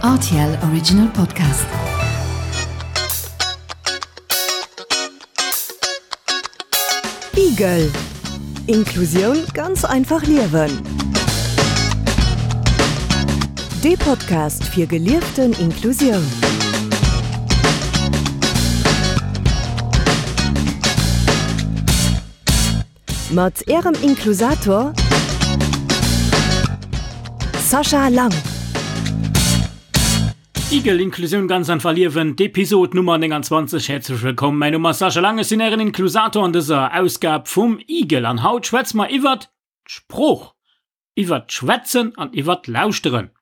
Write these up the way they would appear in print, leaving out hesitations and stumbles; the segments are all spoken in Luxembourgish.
RTL Original Podcast. Igel Inklusioun ganz einfach liewen. Dee Podcast fir gelieften Inklusioun. Mat Ärem Inklusator Sascha Lang. Igel, Inklusioun ganz einfach liewen, d'Episod Nummer 29. Häerzlech wëllkomm, mäin Numm ass Sascha Lang, ech sinn Ären Inklusator an dëser Ausgab vum Igel an haut schwätze mer iwwert d'Sprooch. Iwwert d'Schwätzen an iwwert d'Lauschteren.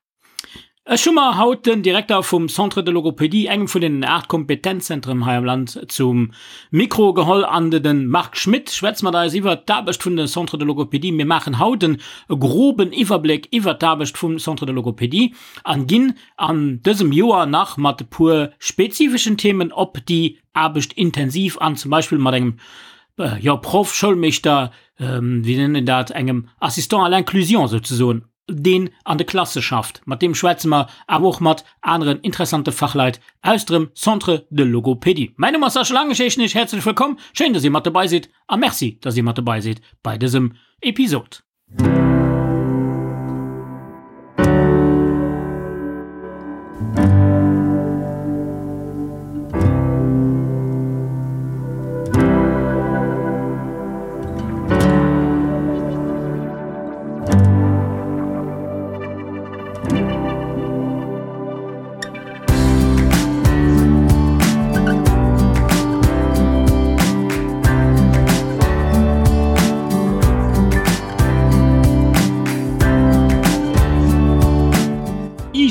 Ech hu mer haut den Direkter vum Centre de Logopédie, engem vun den 8 Kompetenzzentren hei am Land, zum Mikro geholl an de Marc Schmitt schwätzt mat eis iwwert d'Aarbecht vun de Centre de Logopédie. Mir maachen haut en groben Iwwerbléck iwwert d'Aarbecht vum Centre de Logopédie an ginn an dësem Joer nach mat e puer spezifeschen Themen op déi Aarbecht intensiv an, zum Beispill mat engem jo, Proff, Schoulmeeschter, wéi nennt een dat, engem Assistant à l'inclusion souzesoen, deen an de Klasse schafft. Mat deem schwätze mer, awer och mat aneren interessante Fachleit aus dem Centre de Logopédie. Mäin Numm ass Sascha Lang, ech heeschen Iech häerzlech wëllkomm. Schéin, dass Dir mat dobei sidd a Merci, dass Dir mat dobei sidd bei dësem Episod.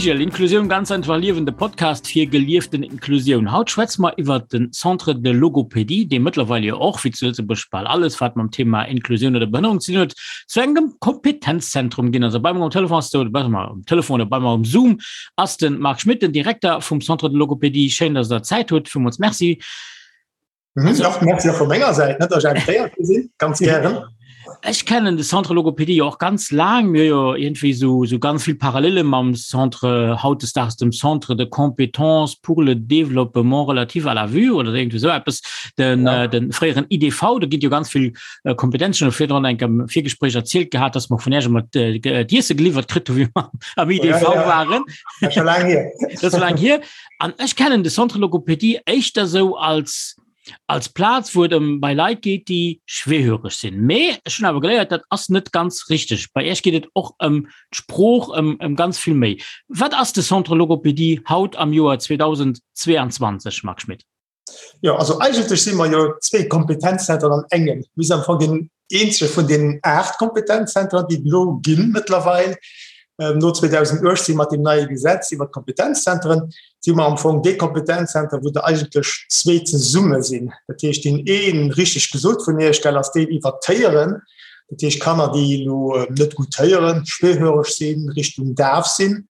Igel, Inklusioun ganz einfach liewen, de Podcast fir gelieften Inklusioun. Haut schwätze mer iwwer den Centre de Logopédie, dee mëttlerweil jo och, wéi zu Lëtzebuerg bal alles, wat mam Thema Inklusioun oder Behënnerung ze dinn huet, zu engem Kompetenzzentrum ginn ass. A bei mer um Telefon ass, oder besser um Telefon oder bei mer um Zoom, ass de Marc Schmitt, den Direkter vum Centre de Logopédie. Schéin, dass Der Zäit hutt. Villmools Merci. Mhm, ja, merci och vu menger Säit, net, dass ech invitéiert gi sinn. Ganz gären. Ech kennen de Centre Logopédie jo och ganz laang. Mir hu jo iergendwéi esou, esou ganz vill Parallele mam Centre, hautdesdaags dem Centre de compétences pour le développement relatif à la vue oder iergendwéi esou eppes, den, ja. den fréieren IDV. Do ginn jo ganz vill äh, Kompetenzen. Ech hu virdrun enk am Virgespréich erzielt gehat, dass mer vun Iech ëmmer d'Iesse geliwwert kritt hu wéi mer am IDV ja, ja. waren. Dat ass scho laang hier. Dat ass laang hier. An ech kennen de Centre Logopédie éischter sou als als Plaz, wou et ëm bei Leit geet, déi schwerhöreg sinn. Mee ech hunn awer geléiert, dat ass net ganz richteg. Bei Iech geet et och ëm d'Sprooch, ëm, ëm ganz vill méi. Wat ass de Centre Logopédie haut am Joer 2022, Marc Schmitt? Jo, also eigentlech si mer jo zwee Kompetenzzentren an engem. Mir sinn am Fong deen eenzege vun deenen 8 Kompetenzzentren, déi et elo ginn mëttlerweil. No 2018 mat deem neie Gesetz iwwer d'Kompetenzzentren si mer am Fong dee Kompetenzzenter, wou der eigentlech zwee zesumme sinn. Dat heescht, deen een, richteg gesot vun Iech, gell, ass deen iwwer d'Héieren. Dat heescht Kanner, déi elo net gutt héieren, schwerhöreg sinn, Richtung daf sinn.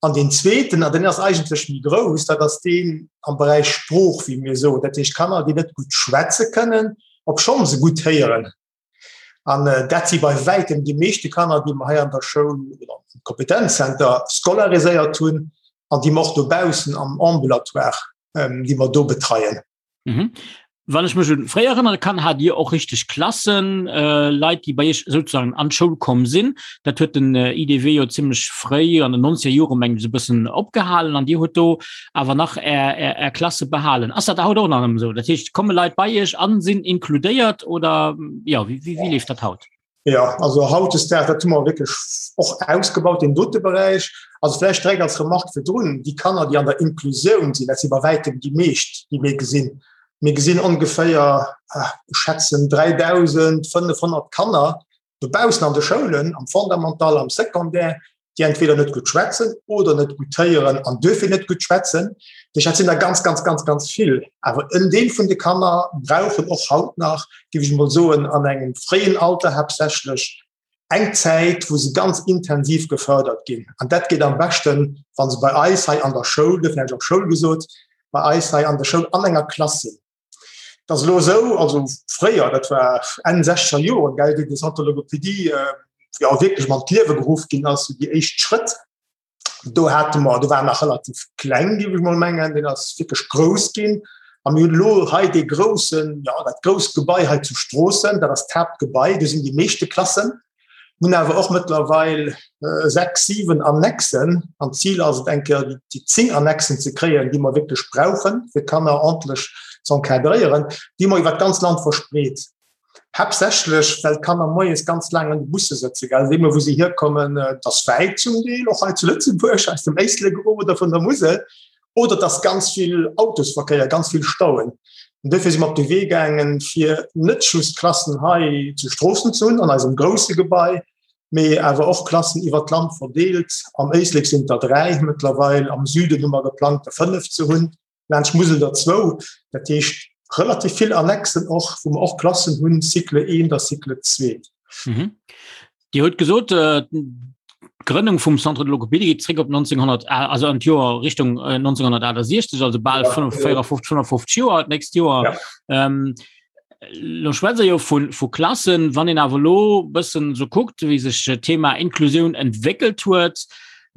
An deen zweeten, an deen ass eigentlech méi grouss, dat ass deen am Beräich Sprooch, wéi mir soen, dat heescht Kanner, déi net gutt schwätze kënnen, obschonn se gutt héieren. An dat si bei wäitem déi meeschte Kanner, déi mer hei an der Schoul oder am Kompetenzzenter scolariséiert hunn an déi mer och dobaussen am Ambulatoire, déi mer do betreien. Mhm. Wann ech mech un fréier erënnere kann, hat Dir och richteg Klassen, äh, Leit, déi bei Iech sozusagen an d'Schoul komm sinn. Dat huet den äh, IDW jo zimmlech fréi an den 90er Jore meng ech e bëssen opgehalen an Dir hutt do awer nach Är, Är, Är Klasse behalen. Ass dat haut och nach ëmmer esou? Dat heescht, komme Leit bei Iech an sinn inkludéiert oder ja, wéi, wéi, wéi leeft dat haut? Ja, also hautdesdaags, dat hu mer wierklech och ausgebaut, deen dote Beräich. Also vläicht direkt als Remarque virdrun, déi Kanner, déi an der Inklusioun sinn, dat si bei wäitem déi meescht, déi mir gesinn. Mir gesinn ongeféier, ech schätzen, 3.500 Kanner dobaussen an de Schoulen, am Fondamental, am Secondaire, déi entweder net gutt schwätzen oder net gutt héieren an duerfir net gutt schwätzen. Dat sinn der ganz, ganz, ganz, ganz vill. Awer en Deel vun de Kanner brauchen och haut nach, géif ech emol soen, an engem fréien Alter haaptsächlech eng Zäit, wou se ganz intensiv gefërdert ginn. An dat geet am beschten, wa se bei eis hei an der Schoul, duerfir hunn ech och Schoul gesot, bei eis hei an der Schoul an enger Klass sinn. Dat ass elo esou, also fréier, dat war Enn sechzeger Joren, gell, wéi de Centre de Logopédie jo wierklech an d'Liewe geruff ginn ass, déi éischt Schrëtt. Do hate mer, do war nach relativ kleng, géif ech mol mengen, deen ass wierklech grouss ginn. A mir hunn elo hei dee groussen, jo, dat grousst Gebai hei zu Stroossen, dat ass d'Haaptgebai, do sinn déi meeschte Klassen. Mir hunn awer och mëttlerweil 6, 7 Annexen an d'Zil ass et eng Kéier déi 10 Annexen ze kréien, déi mer wierklech brauchen, fir d'Kanner ordentlech ze encadréieren, déi mer iwwer d'ganz Land verspreet. Haaptsächlech well d'Kanner moies ganz laang an de Busse sëtzen, gell, deemno wou se hierkommen, et ass wäit zum Deel, och hei zu Lëtzebuerg, aus dem Éislek erof oder vun der Musel, oder et ass ganz vill Autosverkéier, ganz vill Stauen. An duerfir si mer op de Wee gaangen, fir net just Klassen hei zu Stroossen ze hunn, an eisem grousse Gebai, mee awer och Klassen iwwert d'Land verdeelt. Am Éislek sinn et der 3 mëttlerweil, am Süden hu mer geplangt, der 5 ze hunn, laanscht d'Musel der zwou. Dat heescht relativ vill Annexen och, wou mer och Klassen hunn, Cycle 1 a Cycle 2. Dir hutt gesot, d'Grënnung vum Centre de Logopédie geet zréck op 1900, also an d'Joer Richtung 1968, also bal 54, 55 Joer d'nächst Joer. Ja. Ähm, lo schwätze jo vu, vu Klassen, wann een awer lo bëssen so kuckt, wéi sech Thema Inklusioun entwéckelt huet,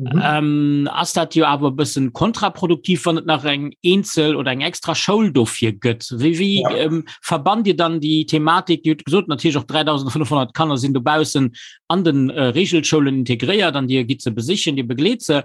mhm. ähm, ass dat jo awer bëssen kontraproduktiv, wann et nach eng eenzel oder eng extra Schoul dofir gëtt. Wéi, wéi ja. ähm, verbannt Dir dann déi Thematik, Dir hutt gesot natierlech och 3500 Kanner sinn dobaussen an den äh, Regelschoulen integréiert an Dir gitt se besichen, Dir begleet se.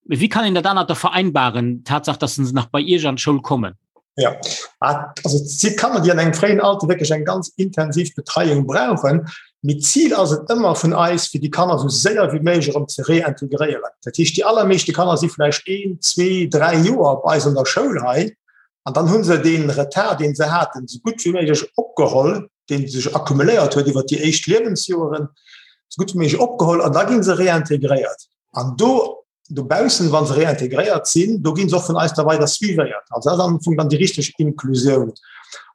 Wie kann een dat anert da vereinbaren, Tatsaach, dass se nach bei Iech an d'Schoul kommen? Ja, also et si Kanner, déi an engem fréien Alter wierklech eng ganz intensiv Betreiung brauchen. Mee d'Zil ass et ëmmer vun eis, fir déi Kanner esou séier wéi méiglech erëm ze reintegréieren. Dat heescht, déi allermeeschte Kanner si vläicht een, zwee, dräi Joer bei eis an der Schoul hei an dann hu se dee Retard, dee se haten, esou gutt wéi méiglech opgeholl, dee sech accumuléiert huet iwwer déi éischt Liewensjoeren, esou gutt wéi méiglech opgeholl an da gi se reintegréiert. An do Dobaussen, wa se réintegréiert sinn, do gi se och vun eis da weider suivéiert. Also dat ass am Fong dann déi richteg Inklusioun.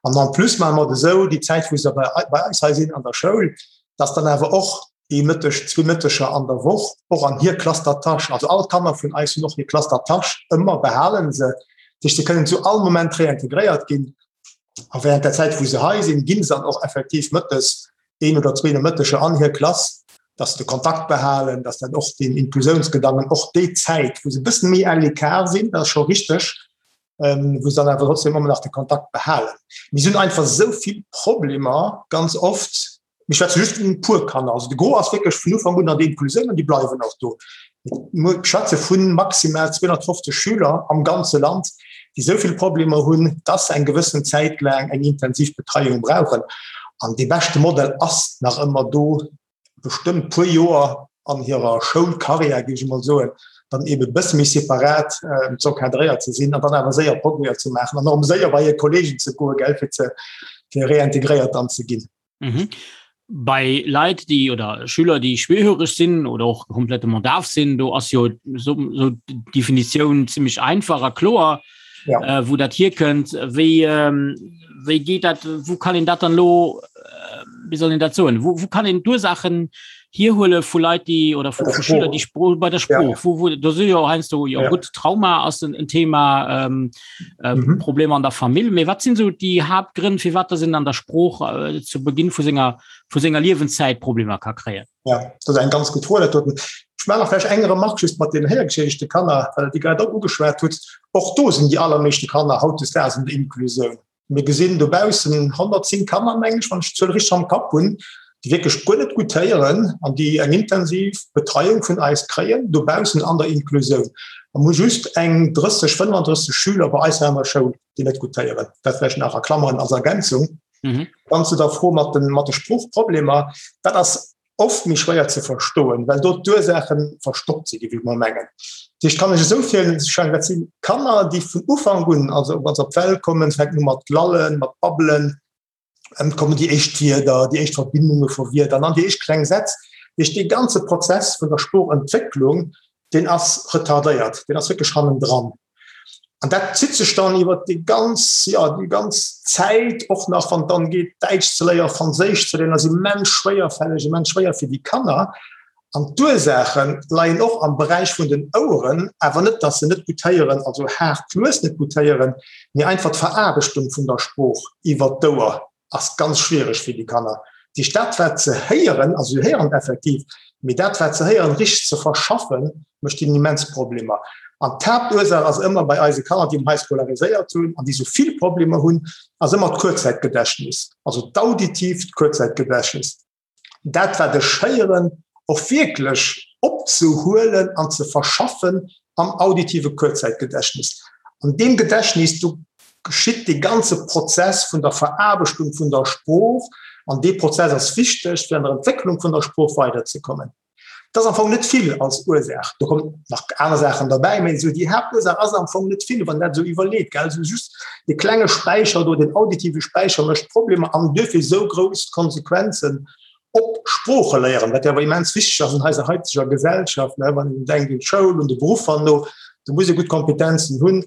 An en plus maache mer et esou, déi Zäit, wou se bei eis hei sinn an der Schoul, dass dann awer och ee Mëtteg, zwee Mëtteger an der Woch och an hir Classe d'attache, also all d'Kanner vun eis hunn och hir Classe d'attache ëmmer, behale se, dat heescht, se kënnen zu all Moment réintegréiert ginn. A während der Zäit, wou se hei sinn, gi se dann och effektiv mëttes een oder zwee Nomëtteger an hir Klass, dass se de Kontakt behalen, dass dat och den Inklusiounsgedanken och déi Zäit, wou se e bëssen méi à l'écart sinn, dat ass scho richteg, wou se dann awer trotzdem ëmmer nach de Kontakt behalen. Mir hunn einfach esou vill Problemer ganz oft, Mir schwätze just vun e puer Kanner. Also de Gros ass wierklech vun Ufank un an der Inklusioun an déi bleiwen och do. Mir schwätze vu maximal 250 Schüler am ganze Land, déi esou vill Problemer hunn, dass se eng gewëssen Zäit laang eng intensiv Betreiung brauchen. An dee beschte Modell ass nach ëmmer do, bestëmmt puer Joer an hirer Schoulkarriär, géif ech emol soen, dann eebe e bësse méi separat z'encadréiert ze sinn an dann awer séier Progrèsen ze maachen an och séier bei hir Kolleegen ze goen, gell, fir ze fir reintegréiert dann ze ginn. Mhm. Bei Leit déi oder Schüler déi schwerhöreg sinn oder och complètement daf sinn, do ass jo so, so Definitioun ziemlich einfach a kloer ja. äh, wo dat hier kënnt. Wéi, ähm, wéi geet dat wo kann een dat dann lo äh, wie soll een dat soen? Wo, wo kann een d'Ursaachen hierhuele vu Leit déi oder vu, vu Schüler déi Spro bei der Sprooch ja. wo, wo, do si jo heiansdo jo ja. gutt Trauma ass en, en Thema ähm, äh, mhm. Problemer an der Famill. Mee wat sinn so déi Haaptgrënn fir wat sinn an der Sprooch äh, zu Beginn vu senger vu senger Liewenszäit Problemer ka kréien? Ja, dat ass eng ganz gutt Fro. Ech maache nach vläicht eng Remarque just mat den héiergeschädigte Kanner, well Der déi grad och ugeschwat hutt. Och do sinn déi allermeeschte Kanner hautdesdaags an der Inklusioun. Mir gesinn dobaussen 110 Kanner, mengen ech, wann ech d'Zuel richteg am Kapp hunn, déi wierklech guer net gutt héieren an déi eng intensiv Betreiung vun eis kréien dobaussen an der Inklusioun. A mir hu just eng 30, 35 Schüler bei eis hei an der Schoul, déi net gutt héieren. Dat vläicht nach a Klammeren als Ergänzung. Dann zu der Fro mat de Sproochproblemer. Dat ass oft méi schwéier ze verstoen, well do d'Ursaache verstoppt sinn, géif ech mol mengen. Dat heescht, kann ech esou virstellen, dat si Kanner, déi vun Ufank un, also wa se op d'Welt kommen, fänken u mat lallen, mat babbelen, et kommen déi éischt Wierder, déi éischt Verbindunge vu Wierder an dann déi éischt kleng Sätz. Dat heescht, dee ganze Prozess vun der Sproochentwécklung, deen ass retardéiert, deen ass wierklech hannendran. An dat zitt sech dann iwwer déi ganz, ja, déi ganz Zäit, och nach wann et dann geet, Däitsch ze léieren, Franséisch ze léieren, ass immens schwéierfälleg, immens schwéier fir déi Kanner. An d'Ursaache leien och am Beräich vun den Oueren, awer net, dass se net gutt héieren, also haart lues net gutt héieren, mee einfach d'Veraarbechtung vun der Sprooch iwwer d'Ouer ass ganz schwiereg fir déi Kanner. Dat heescht, dat wat se héieren, also se héieren effektiv, Mee dat, wat se héieren, richteg ze verschaffen, mécht hinnen immens Problemer. An d'Haaptursaach ass ëmmer bei eise Kanner, déi mer hei scolariséiert hunn an déi esou vill Problemer hunn, ass ëmmer d'Kuerzzäitgedächtnis, also d'auditiivt Kuerzzäitgedächtnis. Dat, wat ech héieren, och wierklech opzehuelen an ze verschaffen am auditive Kuerzzäitgedächtnis. An deem Gedächtnis, do geschitt dee ganze Prozess vun der Veraarbechtung vun der Sprooch an dee Prozess ass wichteg, fir an der Entwécklung vun der Sprooch weiderzekommen. Dat ass am Fong net vill als Ursaach. Do kommen nach aner Saachen derbäi, mä esou déi Haaptursaach ass am Fong net vill, wann een dat esou iwwerleet, gell. Esou just dee klenge Späicher do, deen auditive Späicher mécht Problemer an duerfir esou grouss Konsequenzen op Sprooche léieren, wat jo awer immens wichteg ass an eiser haiteger Gesellschaft, ne, wann een denkt un d'Schoul, un de Beruff herno, do muss ee gutt Kompetenzen hunn.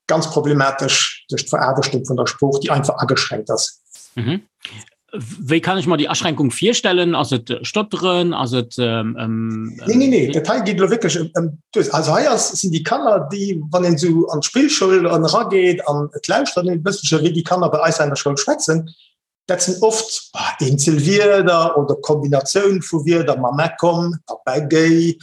Ganz problematesch duerch d'Veraarbechtung vun der Sprooch, déi einfach ageschränkt ass. Mhm. Wéi kann ech mer déi Aschränkung virstellen? Ass et Stotteren? Ass et ähm, ähm, Nee, nee, nee, dat hei geet elo wierklech ëm, ëm d'Ursaach. Also hei ass, sinn déi Kanner, déi, wann een esou an d'Spillschoul erageet an et lauschtert een e bësselche wéi déi Kanner bei eis an der Schoul schwätzen, Dat sinn oft eenzel Wierder oder Kombinatioun vu Wierder, Mamma komm, Papa géi,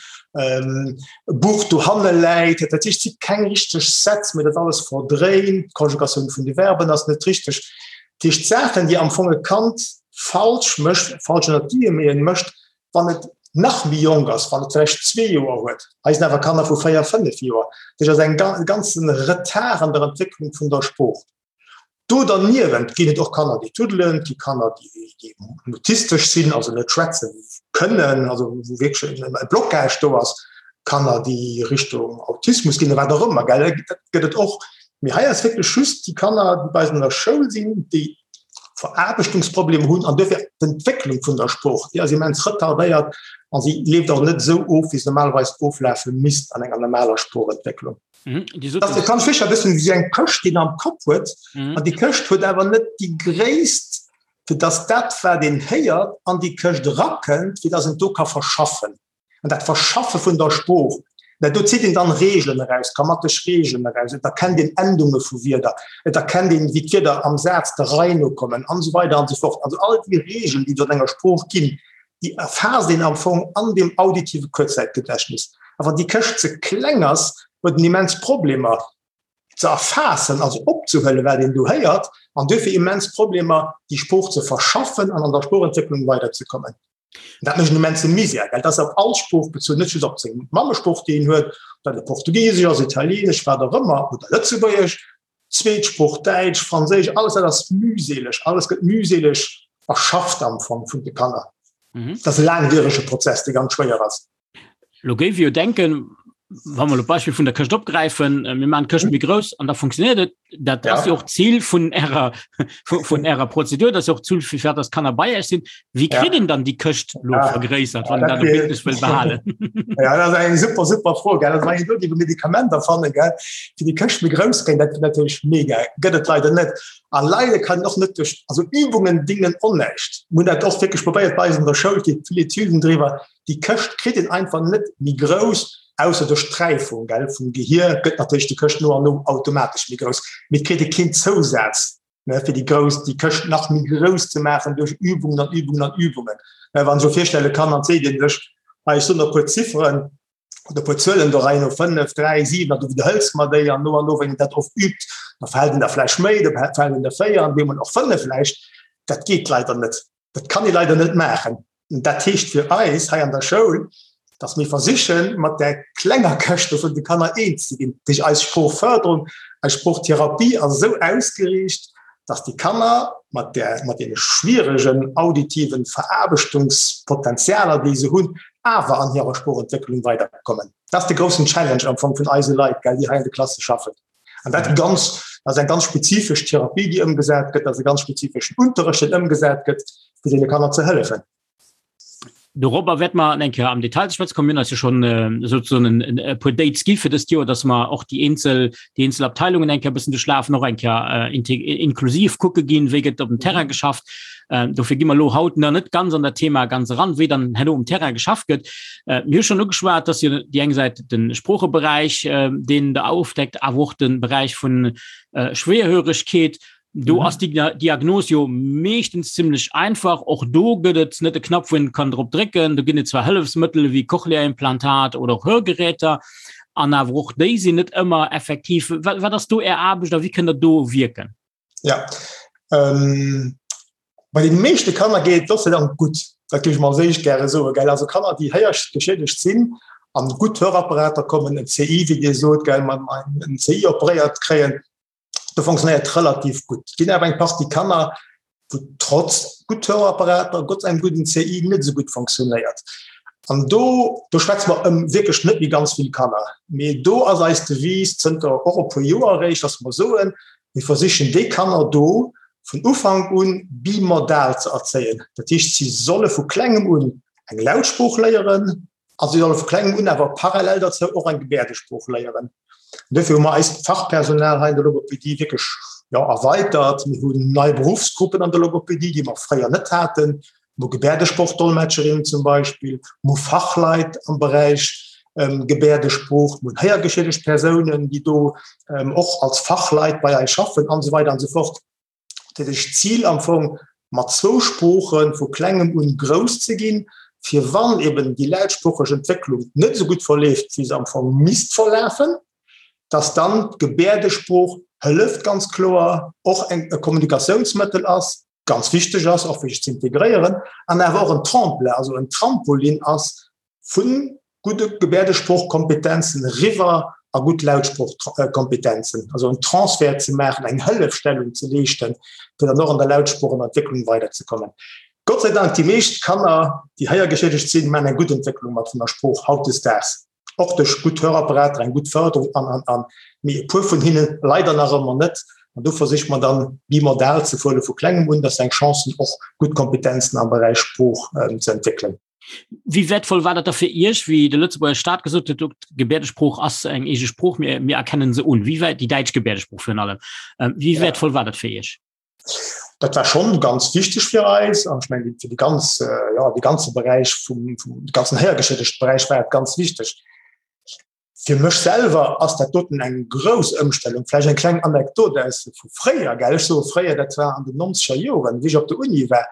Buch dohanne läit. Dat heescht, et si keng richteg Sätz, mee dat alles verdréint. D'Konjugatioun vun de Verben ass net richteg. Dat heescht, Saachen, déi am Fong e Kand falsch mécht, falsch ënner Guillemeten mécht, wann et nach méi jonk ass, wann et vläicht zwee Joer huet. Hei sinn awer Kanner vu véier, fënnef Joer. Dat heescht, et ass e ganze Retard an der Entwécklung vun der Sprooch. Do derniewent ginn et och Kanner, déi tuddelen, et gi Kanner, déi mutistesch sinn, also net schwätze kënnen, also wou wierklech e Blocage do ass, Kanner, déi Richtung Autismus ginn, wat och ëmmer, gell, dat gëtt et och. Mee hei ass wierklech just déi Kanner, déi bei eis an der Schoul sinn, déi Veraarbechtungsproblemer hunn an duerfir d'Entwécklung vun der Sprooch, déi ass immens retardéiert a si leeft och net esou of, wéi se normalerweis oflafe misst an enger normaler Sproochentwécklung. Mhm, das kann sicher bëssen wéi eng Këscht déi am Kapp huet mhm. an déi Këscht huet awer net déi gréisst fir dass dat wat een héiert an déi Këscht rakënnt fir dass en do ka verschaffen an dat Verschaffe vun der Sprooch dat do zitt een dann Regeln eraus grammatesch Regeln eraus et erkennt een Endunge vu Wierder et erkennt een wéi d'Wierder am Saz der Rei no kommen an esou weider an esou fort also all déi Regeln déi et an enger Sprooch ginn déi erfaasst een am Fong an deem auditive Kuerzzäitgedächtnis. A wann déi Këscht ze kleng ass, huet en immens Problemer ze erfaassen, also opzehuelen, wat een do héiert, an duerfir immens Problemer, déi Sprooch ze verschaffen an an der Sproochentwécklung weiderzekommen. Dat mécht en immense Misär, well dat ass op all Sprooch bezunn, net just op seng Mammesprooch, déi een huet, ob dat elo Portugisesch ass, Italieenesch, wat och ëmmer, oder Lëtzebuergesch. Zweetsprooch, Däitsch, Franséisch, alles dat ass mühseleg, alles gëtt mühseleg erschafft am Fong vun de Kanner. Mhm. Dat ass e laangwierege Prozess, dee ganz schwéier ass. Lo géif jo denken, wa mer lo d'Beispill vun der Këscht opgräifen, äh, mir maachen d'Këscht méi grouss an da funktioniert et. Dat ja. ass jo och d'Zil vun ärer, vun ärer Prozedur, dat ass jo och d'Zil, fir dass Kanner bei Iech sinn. Wéi kritt een dann déi Këscht lo ja. vergréissert, wann ja, dat wierklech wëll behalen? Ja, dat ass eng super, super Fro, gell. Wann een do déi Medikamenter fanne, gell, fir déi Këscht méi grouss kréien, dat wier natierlech mega. Gëtt et leider net. A leider kann een och net duerch, also Übungen dingen och näischt. Mir hunn dat och wierklech probéiert bei eis an der Schoul, et gi vill Etüden driwwer, déi Këscht kritt een einfach net méi grouss, ausser duerch d'Räifung, gell, vum Gehier gëtt natierlech déi Këscht no an no automatesch méi grouss, mee et kritt ee keen Zousaz ne, fir déi grouss, déi Këscht nach méi grouss ze maachen duerch Übungen an Übungen an Übungen. Ne, wann ech elo virstelle kann, an seet een sech, hei, ech soen der e puer Zifferen oder e puer Zuelen do rein, no 5, 3, 7, an du widderhëls mer déi an no an no, wann een dat oft übt, da fält een der vläicht méi, da fält een der 4 an deemol och 5 vläicht. Dat geet leider net. Dat kann ee leider net maachen. Dat heescht fir eis hei an der Schoul, dass mir versichen, mat där klenger Këscht do vun de Kanner eens ze ginn. Dat heescht, eis Sproochförderung, eis Sproochtherapie ass esou ausgeriicht, dass déi Kanner mat där, mat deene schwieregen auditiven Veraarbechtungspotenzialer, déi se hunn, awer an hirer Sproochentwécklung weiderkommen. Dat ass de groussen Challenge am Fong vun eise Leit, gell, déi hei an de Klasse schaffen. An dat ganz, dat ass eng ganz spezifesch Therapie, déi ëmgesat gëtt, dat ass e ganz spezifeschen Unterrecht, deen ëmgesat gëtt, fir deene Kanner ze hëllefen. Dorobber wäerte mer eng Kéier am Detail ze schwätze kommen. Mir hunn eis jo schonn souzesoen e puer Dates gi fir dëst Joer, dass mer och déi eenzel, déi eenzel Abteilungen eng Kéier e bëssen duerchlafen, och eng Kéier inklusiv kucke ginn, wéi gëtt op dem Terrain geschafft. Dofir gi mer elo haut nach net ganz an dat Thema ganz eran, wéi dann herno um Terrain geschafft gëtt. Mir hu schonn ugeschwat, dass jo déi eng Säit de Sproocheberäich, deen Der ofdeckt, awer och de Beräich vun Schwerhöregkeet. Do mhm. ass die Diagnos jo meeschtens ziemlech einfach. Och do gëtt et net de Knapp wou een kann drop drécken. Do ginn et zwar Hëllefsmëttel wéi Cochlea-Implantat oder och Hörgeräter an awer och déi sinn net ëmmer effektiv. Wat, wat ass do Är Aarbecht a wéi kënnt der do wierken? Ja. Ähm, bei den meeschte Kanner geet et Gott sei Dank gutt. Dat géif ech mol als éischt gäre soen, gell. Also Kanner, déi héiergeschiedegt sinn an gutt Hörapparater kommen, en CI, wéi Dir sot, gell, man en CI operéiert kréien, do fonctionnéiert relativ gutt. Et ginn awer eng Partie Kanner, wou trotz gutt Hörapparater, Gott engem gudden CI net esou gutt fonctionnéiert. An do, do schwätze mer ëm wierklech net méi ganz vill Kanner. Mee do ass eis Devise zënter och e puer Joer eréischt, dass mer soen, mir versichen déi Kanner do vun Ufank un bimodal ze erzéien. Dat heescht, si solle vu klengem un eng Lautsprooch léieren, A si solle vu klengem un awer parallel derzou och eng Gebäerdesprooch léieren. An dofir hu mer eist Fachpersonal hei an der Logopedie wierklech, jo, erweitert. Mir hunn nei Beruffsgruppen an der Logopedie, déi mer fréier net haten. Mir hu Gebäerdesprochdolmetscherinnen zum Beispill, mir hu Fachleit am Beräich Gebäerdesprooch, mir hunn héiergeschiedegt Persounen, déi do och als Fachleit bei eis schaffen an esou weider an esou fort. Dat heescht, d'Zil am Fong, mat zwou Sprooche vu klengem un grouss ze ginn, fir wann eben déi lautsproocheg Entwécklung net esou gutt verleeft, wéi se am Fong misst verlafen, dass dann d'Gebäerdesprooch hëlleft, ganz kloer och eng e Kommunikatiounsmëttel ass, ganz wichteg ass, och fir sech ze integréieren, an awer och en Tremplin, also en Trampolin ass, Vu gudde Gebäerdesproochkompetenzen eriwwer a gutt Lautsproochkompetenzen, also en Transfert ze maachen, eng Hëllefstellung ze leeschten, fir dann och an der Lautsproochentwécklung weiderzekommen. Gott sei Dank, déi meescht Kanner, déi héiergeschiedegt sinn, maachen eng gutt Entwécklung mat vun der Sprooch hautdesdaags, och duerch gutt Hörapparater, eng gutt Fërderung an, an, an. Mee e puer vun hinne leider nach ëmmer net. An do versicht mer dann, bimodal ze fuere vu klengem un, dass se eng Chance hunn, och gutt Kompetenzen am Beräich Sprooch ze entwéckelen. Wéi wäertvoll war dat da fir Iech, wéi de Lëtzebuerger Staat gesot huet, d'Gebäerdesprooch ass eng eege Sprooch, mir, mir erkennen se un? Wéi wäit déi däitsch Gebäerdesprooch virun allem, wéi ja. wäertvoll war dat fir Iech? Dat war schon ganz wichteg fir eis an ech mengen fir de ganz ja, de ganze Beräich vum, vum de ganzen héiergeschiedegte Beräich war et ganz wichteg. Fir mech selwer ass dat doten eng grouss Ëmstellung. Vläicht eng kleng Anekdot aus vu fréier, gell, ech soe fréier, dat war an den nonzeger Joren, wéi ech op der Uni war,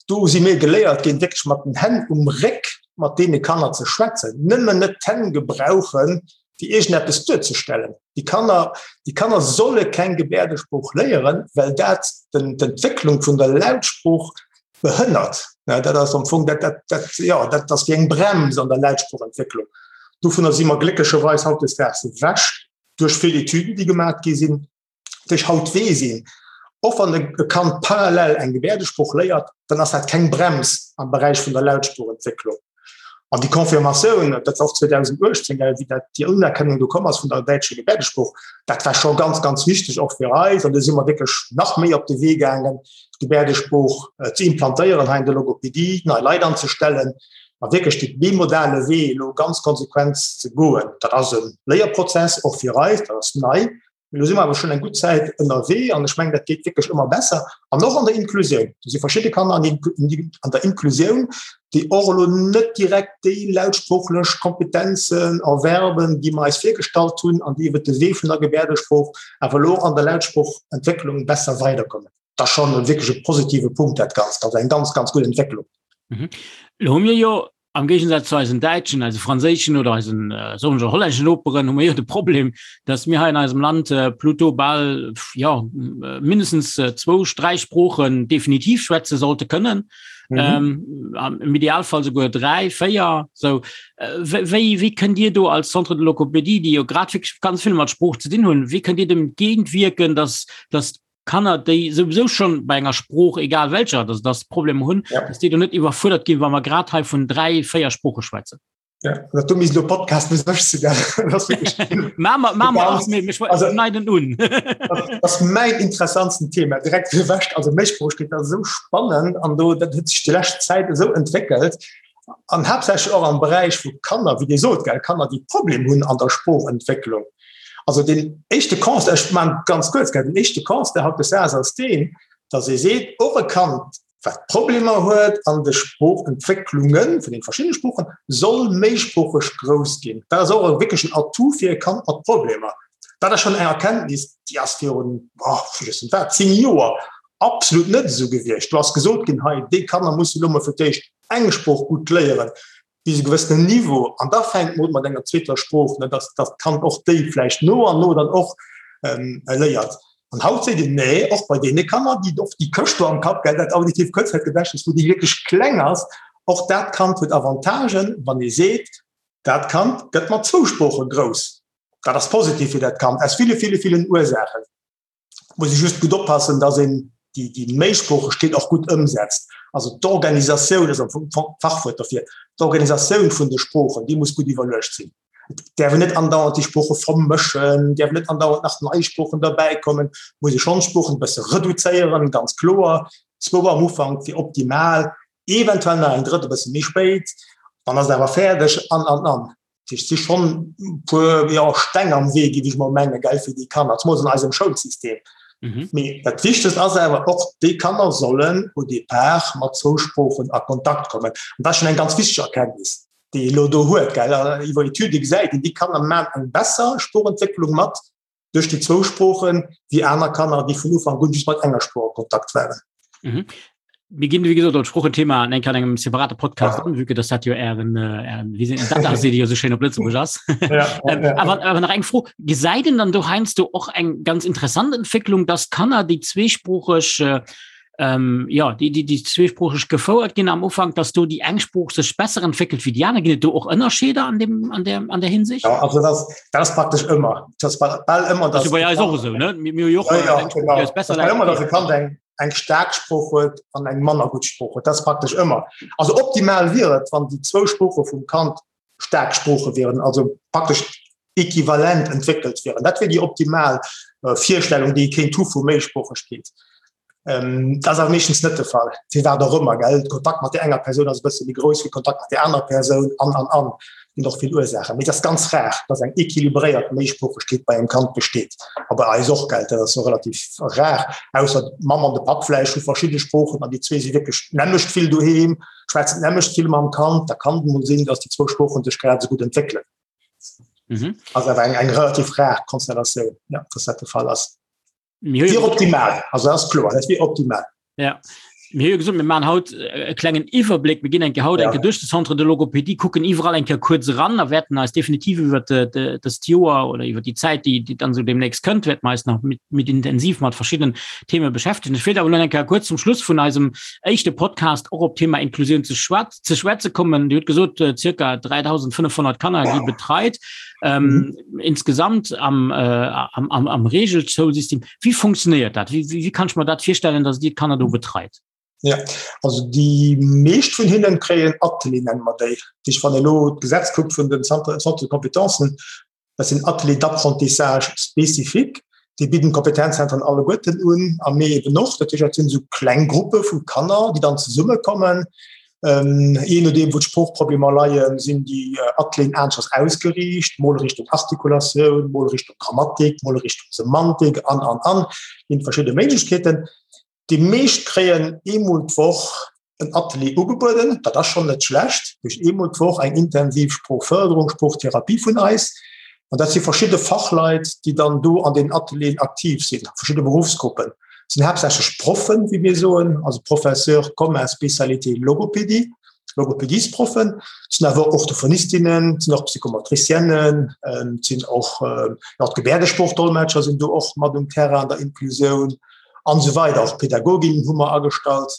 do si mir geléiert ginn, wierklech mat den Hänn um Réck mat deene Kanner ze schwätzen, nëmmen net d'Hänn gebrauchen, fir iergendeppes duerzestellen. Déi Kanner, déi Kanner solle keng Gebäerdesprooch léieren, well dat d'Entwécklung vun der Lautsprooch behënnert. Dat ass am Fong dat, dat, dat, ja, dat ass wéi eng Brems an der Lautsproochentwécklung. Dovunner si mer glécklecherweis hautdesdaags ewech, duerch vill Etüden, déi gemaach gi sinn, duerch haut weess een, och wann e Kand parallel eng Gebäerdesprooch léiert, dann ass dat keng Brems am Beräich vun der Lautsproochentwécklung. An déi Confirmatioun, dat war och 2018, wéi dat déi Unerkennung do komm ass vun der däitscher Gebäerdesprooch, dat war scho ganz, ganz wichteg och fir eis. An do si mer wierklech nach méi op de Wee gaangen, d'Gebäerdesprooch ze implantéieren hei an der Logopedie, nei Leit anzestellen a wierklech dee bimodale Wee elo ganz konsequent ze goen. Dat ass e Léierprozess och fir eis, dat ass nei. Mee elo si mer awer schonn eng gutt Zäit ënnerwee an ech mengen, dat geet wierklech ëmmer besser. An och an der Inklusioun, do si verschidde Kanner an der Inklusioun, déi och elo net direkt déi lautsproochlech Kompetenzen erwerben, déi mer eis virgestallt hunn an déi iwwert de Wee vun der Gebäerdesprooch awer elo an der Lautsproochentwécklung besser weiderkommen. Dat ass schonn wierklech e positive Punkt, dat Ganzt. Also eng ganz, ganz gutt Entwécklung. Elo hu mir jo Am Géigensaz zu eisen däitschen, eise franséischen oder eisen äh, soen ech hollänneschen Noperen hu mir jo de Problem, dass mir hei in eisem Land äh, pluto bal ja äh, mindestens äh, zwou, dräi Sproochen definitiv schwätze sollte kënnen. Mhm. Ähm, am Idealfall souguer dräi, véier. So, äh, wéi, wéi kënnt Dir do als Centre de Logopédie, déi jo grad wirklich ganz vill mat Sprooch ze dinn hunn, wéi kënnt Dir dem entgéintwierken, dass, dass Kanner, déi souwisou schon bei enger Sprooch, egal welcher, dass das Problem hunn, ja. dass déi do net iwwerfuerdert ginn, wa mer grad hei vun dräi, véier Sprooche schwätzen. Ja, dat du misst lo Podcast mis ech ze neiden un. Dat ass mäin interessantsten Thema direkt gewäscht. Also Méisproochkeet ass esou spannend an do dat huet sech déi lescht Zäit esou entwéckelt an haaptsächlech och am Beräich vu Kanner, wéi Dir sot, gell, Kanner, déi Problem hunn an der Sproochentwécklung. Also den éischte Constat, ech man ganz kuerz, gell, den éischte Constat hautdesdaags ass deen, datt ee seet, och e Kand, wat Problemer huet an de Sproochentwécklunge vun den verschiddene Sproochen, soll méisproocheg grouss ginn. Dat ass och e wierklechen Atout fir e Kand mat Problemer. Dat ass schonn eng Erkenntnis, déi ass virun, oh, vergiessen wat, 10 Joer absolut net esou gewiescht. Do ass gesot ginn, hei, déi Kanner musse lo mol fir d'éischt eng Sprooch gutt léieren, bis e gewëssenen Niveau, an da fänkt mer un mat enger zweeter Sprooch, ne, dass dass d'Kand och déi vläicht no an no dann och léiert. An haut seet een, nee, och bei deene Kanner, déi och déi Këscht do am Kapp, gell, dat auditiivt Kuerzzäitgedächtnis, wou déi wierklech kleng ass, och dat Kand huet Avantagen, wann ee seet, dat Kand gëtt mat zwou Sprooche grouss. Dat ass positiv fir dat Kand aus ville, ville, villen Ursaachen. Muss ee just gutt oppassen, dass een déi, déi Méisproochegkeet och gutt ëmsetzt. Also d'Organisatioun ass am Fong d'Fachwuert derfir. D'Organisatioun vun de Sproochen, déi muss gutt iwwerluecht sinn. Et däerf een net andauernd déi Sprooche vermëschen, däerf net andauernd nach nei Sproochen derbäikommen. Muss ee schonn d'Sproochen e bësse reduzéieren, ganz kloer. Zwou am Ufank wier optimal, eventuell nach eng drëtt e bësse méi spéit, dann ass et awer fäerdeg an, an, an. Dat heescht, et si schonn e puer, jo, Steng am Wee, géif ech mol mengen, gell, fir déi Kanner, zemools an eisem Schoulsystem. Mee dat Wichtegst ass awer och, déi Kanner sollen au départ mat zwou Sproochen a Kontakt kommen. An dat ass schonn eng ganz wichteg Erkenntnis, déi ee elo do huet, gell. Iwwer Etüde gesäit een, déi Kanner maachen eng besser Sproochentwécklung mat duerch déi zwou Sproochen, wéi aner Kanner, déi vun Ufank un just mat enger Sprooch a Kontakt waren. Mhm. Mir ginn, wéi gesot, op d'Sproochen-Thema an enk an engem separate Podcast an, vue que dass dat jo Ären, äh, Ären, wéi se, dat ass, déi jo sou schéin op Lëtzebuerg ass. Ja, ähm, ja, awer, awer nach eng Fro, Gesäit een dann do heiansdo och eng ganz interessant Entwécklung, dass Kanner, déi zweesproocheg, äh, ähm, ja, déi, déi, déi zweesproocheg gefouert ginn am Ufank, dass do déi eng Sprooch sech besser entwéckelt wéi déi aner? Ginn et do och Ënnerscheeder an dem, an der, an der Hinsicht? Ja, also das, das ass praktesch ëmmer. Das ass bal ëmmer, dass. Das ass bei eis och esou, ne? Mir, mir hu jo och ja, ja, eng Sprooch, déi eis besser läit. Ëmmer, dass e Kand eng, eng staark Sprooch huet an eng manner gutt Sprooch huet. Dat ass praktesch ëmmer. Also optimal wier et, wann déi zwou Sprooche vum Kand staark Sprooche wieren, also praktesch equivalent entwéckelt wieren. Dat wier déi optimal Virstellung, déi ee kéint hu vu Méisproochegkeet. Dat ass awer meeschtens net de Fall, firwat och ëmmer, gell. De Kontakt mat där enger Persoun ass e bësse méi grouss wéi Kontakt mat där anerer Persoun an, an, an. Et ginn och vill Ursaachen. Mee et ass ganz rar, dass eng equilibréiert Méisproochegkeet bei engem Kand besteet. A bei eis och, gell. Dat ass jo relativ rar, ausser d'Mamm an de Papp vläicht hu verschidde Sproochen an déi zwee si wierklech d'nämmlecht vill doheem, schwätzen d'nämmlecht vill mam Kand. Da kann et emol sinn, dass déi zwou Sproochen sech grad esou gutt entwéckelen. Mhm. Also awer eng, eng relativ rar Konstellatioun, ja, dass dat de Fall ass. Wier optimal, also ass kloer, dat wier optimal. Ja. Mir hu gesot, mir maachen haut e klengen Iwwerbléck. Mir ginn eng Kéier haut ja. eng Kéier duerch de Centre de Logopédie, kucken iwwerall eng Kéier kuerz eran a wäerten eis definitiv iwwer dëst Joer oder iwwer déi Zäit, déi, déi dann esou demnächst kënnt, wäerte mer eis nach mit, mit intensiv mat verschiddenen Theme beschäftegen. Ech wéilt awer elo eng Kéier kuerz zum Schluss vun eisem éischte Podcast och op d'Thema Inklusioun ze schwat ze schwätze kommen. Dir hutt gesot, äh, circa 3500 Kanner gi betreit. Ähm, mhm. Insgesamt am, äh, am, am, am Regelschoulsystem. Wie funktioniert dat? Wie, wie, wie kann ich mir dat virstellen, dass Dir d'Kanner do betreit? Ja, also déi meescht vun hinnen kréien Atelier nennen mer déi. Dich wann elo d'Gesetz kuckt vun den Centre, Centre de Compétences, Dat sinn Ateliers d'apprentissage spécifiques, déi bidden d'Kompetenzzentren alleguerten un a mir eben och. Dat heescht, dat sinn esou kleng Gruppe vu Kanner, déi dann zesummekommen. Jee nodeem, wou d'Sproochproblemer leien, sinn déi Atelieren aneschters ausgeriicht, mol Richtung Artikulatioun, mol Richtung Grammatik, mol Richtung Semantik an, an, an. Ginn verschidde Méiglechkeeten. Déi meescht kréien eemol d'Woch en Atelier ugebueden, dat ass schonn net schlecht, duerch eemol d'Woch eng intensiv Sproochfërderung, Sproochtherapie vun eis. An dat si verschidde Fachleit, déi dann do an den Atelieren aktiv sinn, verschidde Beruffsgruppen. Dat sinn haaptsächlech Proffen, wéi mir soen, also Professeur commun spécialité Logopédie, Logopédiesproffen. Et sinn awer och Orthophonistinnen, et sinn och Psychomotriciennen, et sinn och, jo, d'Gebäerdesproochdolmetscher sinn do och mat um Terrain an der Inklusioun. An esou weider. Och Pädagoginnen hu mer agestallt.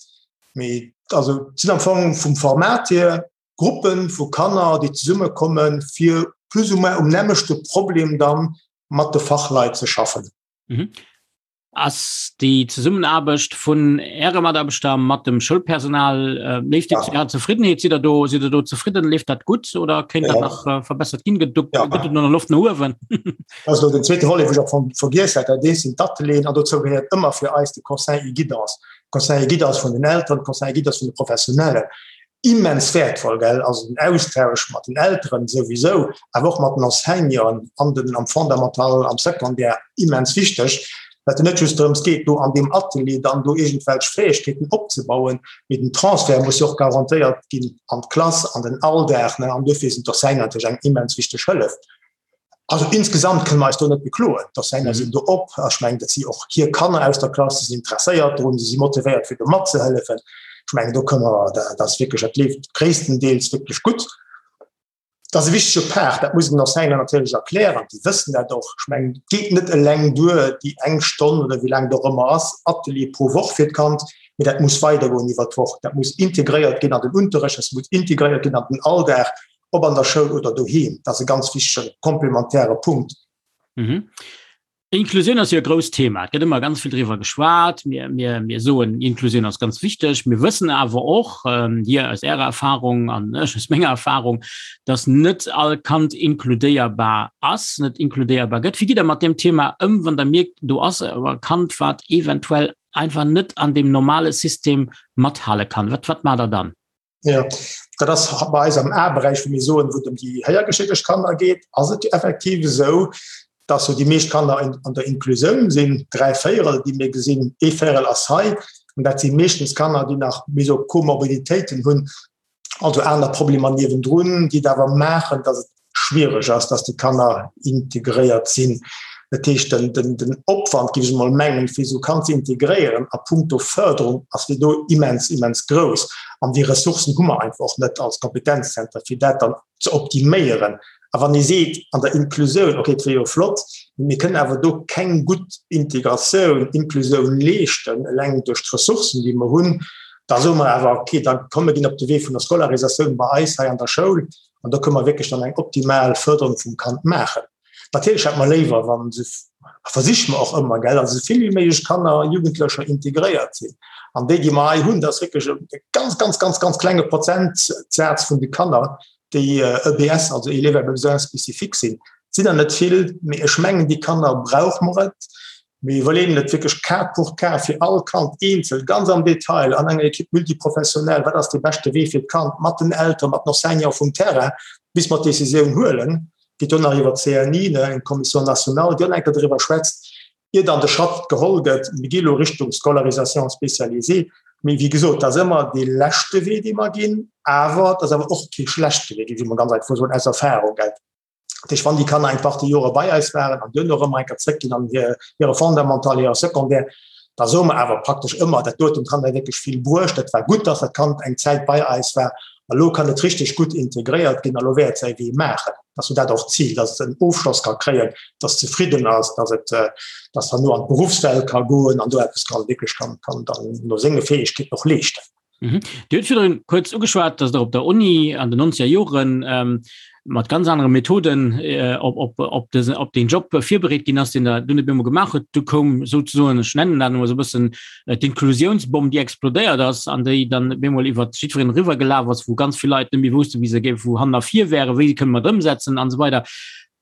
Mee also et sinn am Fong vum Format hier Gruppe vu Kanner, déi zesummekommen, fir plus ou moins um nämmlechte Problem dann mat de Fachleit ze schaffen. Mhm. Ass déi Zesummenaarbecht vun Äre Mataarbechter mat dem Schoulpersonal, leeft déi zu Ärer Zefriddenheet? Sidd Der do, sidd Der do zefridden? Leeft dat gutt oder kéint dat nach verbessert ginn? Gëtt do, gëtt et do nach Loft no uewen? Dat ass elo den zweete Volet, wou ech am Fong vergiess hat. Dat eent sinn d'Atelieren an dozou gehéiert ëmmer fir eis de Conseil et guidance. Conseil et guidance vun den Elteren, Conseil et guidance vun de Professionellen. Immens wäertvoll, gell, also den Austausch mat den Elteren souwisou, awer och mat den Enseignanten an den, am Fondamental, am Secondaire, immens wichteg, well et net just drëms geet, do an deem Atelier dann do iergendwelch Fäegkeeten opzebauen, mee den Transfert muss jo och garantéiert ginn an d'Klass, an den Alldag, ne, an duerfir sinn d'Enseignanten natierlech eng immens wichteg Hëllef. Also insgesamt kënne mer eis do net bekloen. D'Enseignanten sinn do op. Ech mengen, dat si och hir Kanner aus der Klass, si sinn interesséiert drun, si si motivéiert fir do matzehëllefen. Ech mengen, do kënne mer, dat ass wierklech, dat leeft gréisstendeels wierklech gutt. Dat ass e wichtege Part, dat muss een den Enseignanten natierlech erklären, déi wëssen dat och. Ech mengen, et geet net eleng duer, déi eng Stonn oder wéi laang et och ëmmer ass, Atelier pro Woch fir d'Kand, mee dat muss weidergoen iwwer d'Woch. Dat muss integréiert ginn an den Unterrecht, dat muss integréiert ginn an den Alldag. ob an der Schoul oder doheem. Dat ass e ganz wichtege komplementäre Punkt. Mhm. Inklusioun ass jo e grousst Thema. Et gëtt ëmmer ganz vill driwwer geschwat. Mir, mir, mir soen, Inklusioun ass ganz wichteg. Mir wëssen awer och, ähm, Dir aus Ärer Erfahrung an ech aus menger Erfahrung, dass net all Kand inkludéierbar ass, net inkludéierbar gëtt. Wéi gitt Der mat deem Thema ëm, wann Der mierkt, do ass e Kand, wat eventuell einfach net an deem normale System mathale kann? Wat, wat maacht Der dann? Ja, dat ass bei eis am A-Beräich, wou mir soen, wou et ëm déi héiergeschédegt Kanner geet, ass et effektiv esou, dass jo déi meescht Kanner an der Inklusioun sinn, 3 Véierel, déi mir gesinn, ee Véierel ass hei. An dat si meeschtens Kanner, déi nach méi sou Komorbiditéiten hunn, also aner Problemer niewendrun, déi et awer maachen, dass et schwiereg ass, dass déi Kanner integréiert sinn. Dat heescht, den, den, den Opwand, géif ech emol mengen, fir esou e Kand ze integréieren a puncto Förderung ass fir do immens, immens grouss. An déi Ressourcen hu mer einfach och net als Kompetenzzenter, fir dat dann ze optiméieren. A wann ee seet, an der Inklusioun, okay, et wier jo flott, mee mir kënnen awer do keng gutt Integratioun, Inklusioun leeschten, eleng duerch d'Ressourcen, déi mer hunn, da soe mer awer, okay, da komm mir ginn op de Wee vun der Scolarisatioun bei eis hei an der Schoul, An do kënne mer wierklech dann eng optimal Förderung vum Kand maachen. Natierlech hätte mer léiwer, wa se, a versiche mer och ëmmer, gell, dass esou vill wéi méiglech Kanner a Jugendlecher integréiert sinn. An déi, déi mer hei hunn, dat ass wierklech e ganz, ganz, ganz, ganz klenge Prozentsaz vun de Kanner, déi EBS, also Élèves à besoins spécifiques sinn. Et sinn der net vill, mee ech mengen, déi Kanner brauche mer et. Mir iwwerleeën et wierklech cas pour cas fir all Kand eenzel, ganz am Detail, an enger Équipe multiprofessionnelle, wat ass dee beschte Wee fir d'Kand, mat den Elteren, mat den Enseignanten vum Terrain, bis mer d'Decisioun huelen. Geet do nach iwwer d'CNI, eng Commission nationale, déi och nach eng Kéier driwwer schwätzt, ier dann de Schratt geholl gëtt, mir gi elo Richtung Scolarisation spécialisée. Mee wéi gesot, dat ass ëmmer dee leschte Wee, dee mer ginn, awer dat ass awer och kee schlechte Wee, géif ech emol ganz einfach soen, aus Erfahrung. Dat heescht, wann déi Kanner eng Partie Jore bei eis waren an duerno erëm eng Kéier zréckginn an hire Fondamental, hire Secondaire, da soe mer awer praktesch ëmmer, dat huet dem Kand wierklech vill bruecht, dat war gutt, dass dat Kand eng Zäit bei eis war a lo kann et richteg gutt integréiert ginn a lo wäert et säi Wee maachen. Dat ass jo dat och d'Zil, dass et en Ofschloss ka kréien, dass et zefridden ass, dass et dass herno an d'Beruffswelt ka goen an do eppes kann wierklech kann kann dann no senge Fäegkeeten och leeschten. Mhm. Dir hutt virdrun kuerz ugeschwat, dass Der op der Uni an den 90er Joren ähm, mat ganz anere Methoden äh, op, op, op, desen, op den Job virbereet ginn ass, den der dunn op eemol gemaach huet. Du koum souzesoen, ech nennen dat emol esou e bëssen, äh, d'Inklusiounsbomm, déi explodéiert ass an déi dann op eemol iwwer jiddwereen eriwwergelaf ass, wou ganz vill Leit net méi woussten, wéi se géif, wou hannen a vir wären, wéi se kënne mat ëmsetzen an esou weider.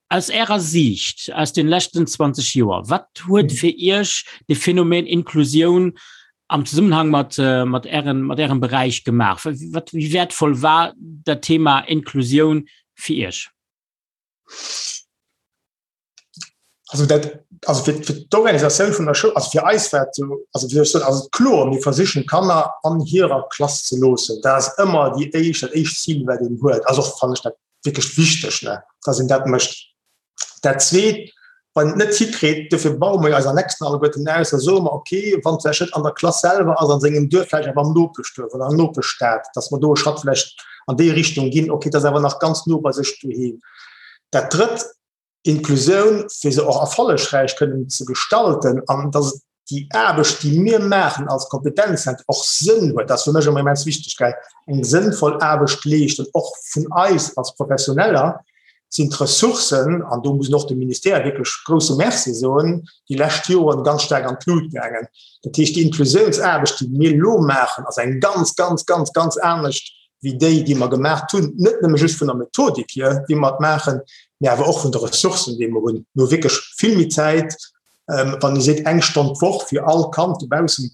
Aus Ärer Siicht, aus den leschten 20 Joer, wat huet fir Iech de Phänomen Inklusioun am Zesummenhang mat, mat Ären, mat Ärem Beräich gemaach? Wat, wéi wäertvoll war dat Thema Inklusioun fir Iech? Also dat, also fir, fir d'Organisatioun vun der Schoul, also fir eis war et sou, also wéi soll ech soen, ass et kloer, mir versichen d'Kanner an hirer Klass ze loossen. Dat ass ëmmer déi éischt, dat éischt Zil, wat een huet. Ass och, fannen ech, dat wierklech wichteg, ne, dass een dat mécht. Dat Zweet, wann een et net hikritt, dofir baue mer jo eis Annexen alleguerten aus, da soe mer, okay, wann et vläicht net an der Klass selwer ass, an sengem Duerf, vläicht awer am Nopeschduerf oder an der Nopeschstad, dass mer do e Schratt vläicht an déi Richtung ginn, okay, et ass awer nach ganz no bei sech doheem. Dat Drëtt, Inklusioun, fir se och erfollegräich kënnen ze gestalten an dass et déi Aarbecht, déi mir maachen als Kompetenzzentrum, och Sënn huet. Dat ass fir mech ëmmer immens wichteg, gell, eng sënnvoll Aarbecht leeschten, och vun eis als Professioneller sinn d'Ressourcen, an do muss een och dem Ministère wierklech grouse Merci soen, déi lescht Joren ganz staark an d'Lut gaangen. Dat heescht, déi Inklusiounsaarbecht, déi mir elo maachen, ass eng ganz, ganz, ganz, ganz anescht wéi déi, déi mer gemaacht hunn, net nëmme just vun der Methodik hier, wéi mer et maachen, mä awer och vun de Ressourcen, déi mer hunn. Mir hu wierklech vill méi Zäit, wann ee seet eng Stonn d'Woch fir all Kand dobaussen,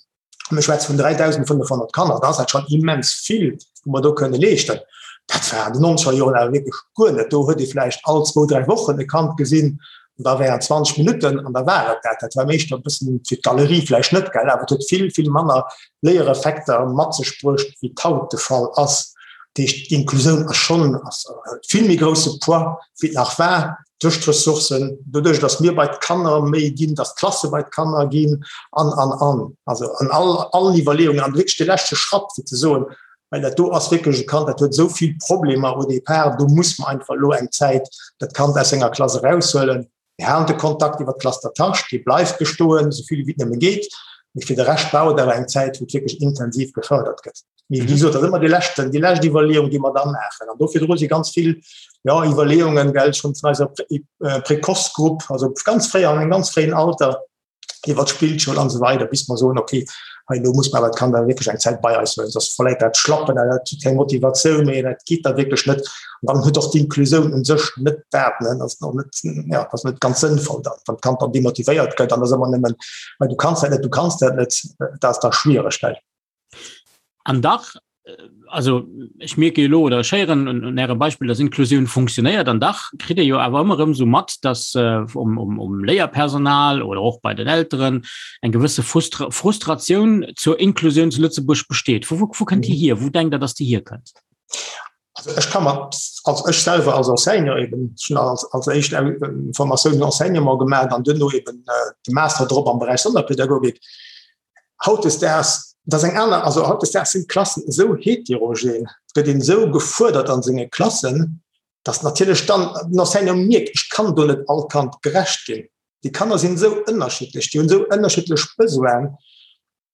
mir schwätze vun 3.500 Kanner, da ass dat schonn immens vill, wou mer do kënne leeschten. Dat war an den nonzeger Joren awer wierklech guer net. Do huet ee vläicht all zwou, dräi Wochen e Kand gesinn an da während 20 Minutten an da war et dat. Dat war meeschter e bëssen fir d'Galerie vläicht net, gell, awer et huet vill, vill manner Léiereffekter mat sech bruecht, wéi et haut de Fall ass. Dat heescht, d'Inklusioun ass schonn, ass huet vill méi grousse Poids, wéi et nach war. Duerch d'Ressourcen, doduerch, datt mir bei d'Kanner méi ginn, datt d'Klasse bei d'Kanner ginn an, an, an. Also an all, allen Iwwerleeungen an wierklech de leschte Schratt, fir ze soen, well dat do ass wierklech e Kand, dat huet esou vill Problemer au départ, do muss mer einfach elo eng Zäit dat Kand aus senger Klass eraushuelen. Mir halen de Kontakt iwwer d'Classe d'attache, dee bleift bestoen, esou vill wéi et nëmme geet, mee fir de Rescht brauch et awer eng Zäit, wou et wierklech intensiv gefërdert gëtt. Mee wéi gesot, dat ass ëmmer dee leschten, déi lescht Iwwerleeung, déi mer da maachen. An do virdru si ganz vill, jo, Iwwerleeungen, gell, schonn vun eiser Précoce-Grupp, also ganz fréi, an engem ganz fréien Alter, iwwer d'Spillschoul an esou weider, bis mer soen, okay, hei elo muss mer awer d'Kand awer wierklech eng Zäit bei eis huelen, soss verléiert dat d'Schlappen, dat huet keng Motivatioun méi, dat geet da wierklech net. An dann huet och d'Inklusioun u sech net dat, ne, dat ass och net, ja, dat ass net ganz sënnvoll dann, wann d'Kand dann demotivéiert gëtt an ass ëmmer nëmmen, well du kanns dat net, du kanns dat net, dat ass da schwiereg, gell. An dach, also ech mierke jo elo oder ech héieren un, un Ärem Beispill, dass Inklusioun funktionéiert. An dach kritt ee jo awer ëmmer erëm esou mat, dass äh, um, um, um Léierpersonal oder och bei den Elteren eng gewësse Frustra Frustratioun zur Inklusioun zu Lëtzebuerg besteet. Vu, wou, wou kënnt déi hier? Wou denkt Der, dass déi hierkënnt? Also ech kann mer, also ech selwer als Enseignant eben, ech hunn als, als éischt Formatioun den Enseignement gemaach an duerno eben äh, de Master drop am Beräich Sonderpädagogik. Hautdesdaags, dat ass eng aner, also hautdesdaags sinn d'Klassen esou heterogen, et gëtt een esou gefuerdert an senge Klassen, datt natierlech dann den Enseignant mierkt, ech kann do net all Kand gerecht ginn. Déi Kanner sinn esou ënnerschiddlech, déi hunn esou ënnerschiddlech Besoinen.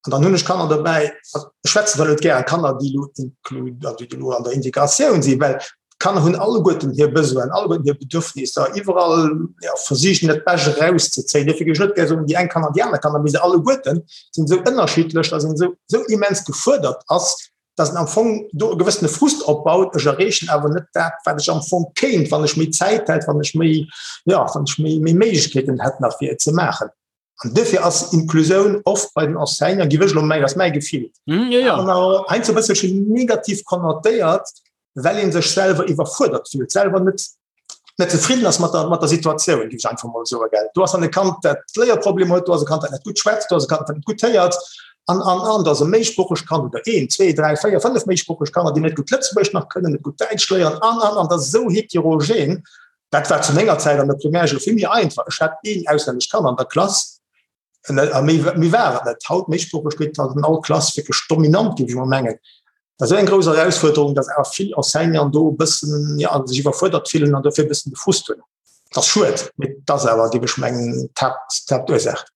An dann hunn ech Kanner dobäi, also ech schwätzen zwar net gären Kanner, déi elo inclu, also déi elo an der Integratioun sinn, well D'Kanner hunn alleguerten hir Besoinen, alleguerten hir Bedürfnisser, iwwerall ja, versichen dat Bescht erauszezéien. Dofir géif ech net gär soen, déi eng Kanner an déi aner Kanner, mee se alleguerten sinn esou ënnerschiddlech, datt een esou, esou immens gefuerdert ass, datt en am Fong do e gewëssene Frust opbaut, ech erreechen awer net dat, wat ech am Fong kéint, wann ech méi Zäit hätt, wann ech méi, ja, wann ech méi, méi Méiglechkeeten hätt nach fir et ze maachen. An duerfir ass Inklusioun oft bei den Enseignanten, géif ech elo mengen, ass mäi Gefill, mm, ja, ja. heiansdo e bësselchen negativ konnotéiert, well ee sech selwer iwwerfuerdert fillt, selwer net, net zefridden ass mat der, mat der Situatioun, géif ech einfach mol soen. Gell. Do ass dann e Kand, dat Léierproblemer huet, do ass e Kand, dat net gutt schwätzt, do ass e Kand, dat net gutt héiert, an, an, an, do ass e méisproochegt Kand oder een, zwee, dräi, véier, fënnef méisproocheg Kanner, déi net gutt Lëtzebuergesch nach kënnen, net gutt Däitsch léieren, an, an, an, dat ass esou heterogen. Dat war zu menger Zäit an der Primärschoul vill méi einfach. Ech hat een auslännescht Kand an der Klass a méi, méi war et net. Haut Méisproochegkeet ass an all Klass wierklech dominant, géif ech mol mengen. Dat ass esou eng grouss Erausfuerderung, datt awer vill Enseignanten do e bëssen, ja, sech iwwerfuerdert fillen an dofir e bëssen de Frust hunn. Dat ass schued, mee dat ass awer, géif ech mengen, d'Haapt, d'Haaptursaach.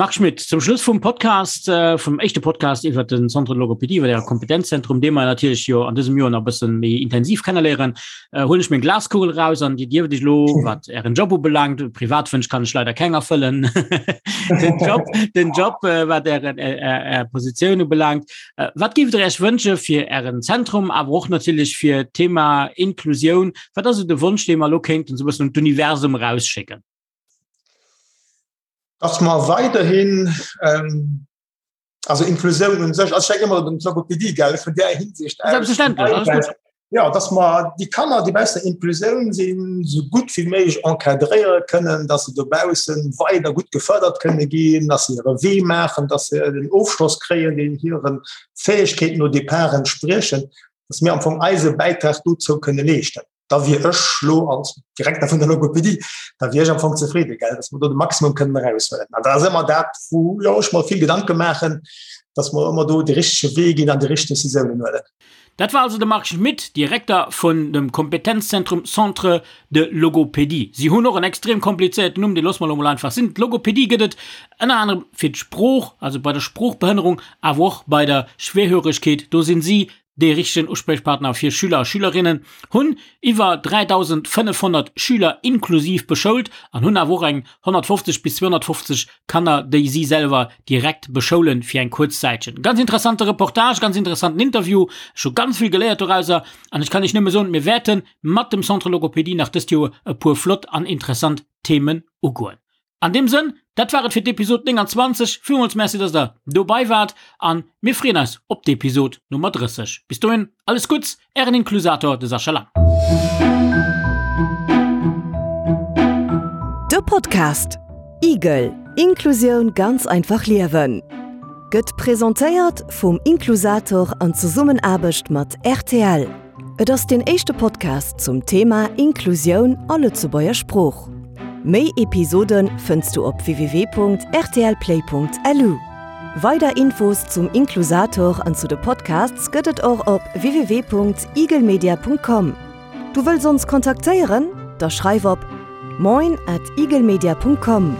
Marc Schmitt, zum Schluss vum Podcast, äh, vum éischte Podcast iwwer den Centre de Logopädie, iwwer Äre Kompetenzzentrum, dee mer natierlech jo an dësem Joer nach e bëssen méi intensiv kenneléieren, äh, huelen ech meng Glaskugel raus an Dir dierft Iech elo, wat Ären Job ubelaangt, Privatwënsch kann ech leider keng erfëllen, den Job, den Job, äh, wat Ären, äh, Är, Är Positioun ubelaangt, äh, wat géift Der Iech wënsche fir Ären Zentrum, awer och natierlech fir d'Thema Inklusioun? Wat ass esou de Wonsch, dee mer elo kéinten esou e bëssen un d'Universum erausschécken? Dass mer weiderhin, ähm, also Inklusioun un sech, also ech denken ëmmer un d'Logopädie, gell, vun där Hinsicht aus. Selbstverständlech, alles gutt. Ja, dass mer déi Kanner, déi baussen der Inklusioun sinn, esou gutt wéi méiglech encadréiere kënnen, dass se dobausse weider gutt gefërdert kënne ginn, dass se hire Wee maachen, dass se den Ofschloss kréien, deen hire Fäegkeeten au départ entspriechen, dass mir am Fong eise Bäitrag dozou kënne leeschten. da wier ech lo als Direkter vun der Logopädie, da wier ech am Fong zefridde, gell, dass mer do de Maximum kënnen eraushuelen. An dat ass ëmmer dat, wou jo ech mer vill Gedanke maachen, dass mer ëmmer do de richtege Wee ginn an déi richteg Decisiounen huelen. Dat war also de Marc Schmitt, Direkter vun dem Kompetenzzentrum Centre de Logopédie. Si hunn och en extrem komplizéierten Numm, dee loosse mer elo mol einfach sinn. D'Logopédie gëtt et ënner anerem fir d'Sprooch, also bei der Sproochbehënnerung, awer och bei der Schwerhöregkeet. Do sinn si dee richtegen Uspriechpartner fir Schüler a Schülerinnen, hunn iwwer 3.500 Schüler inklusiv beschoult an hunn awer och eng 150 bis 250 Kanner, déi si selwer direkt beschoulen fir eng kuerz Zäitchen. Ganz interessante Reportage, ganz interessanten Interview, ech hu ganz vill geléiert dorauser an ech kann iech nëmme soen, mir wäerte mat dem Centre Logopédie nach dëst Joer e puer flott an interessant Themen ugoen. An deem Sënn, dat war et fir d'Episod 29. Villmools Merci, dass der dobei waart an mir freeën eis op d'Episod Nummer 30. Bis dohin, alles Gutts, ären Inklusator, de Sascha Lang. De Podcast Igel, Inklusioun ganz einfach liewen gëtt presentéiert vum Inklusator an Zesummenaarbecht mat rtl. Et ass deen éischte Podcast zum Thema Inklusioun a Lëtzebuerger Sprooch. Méi Episode fënns du op www.rtlplay.lu. Weider Infos zum Inklusator an zu de Podcasts gëtt et och op www.eaglemedia.com. Du wëlls ons kontaktéieren? Da schreif op moin at eaglemedia.com.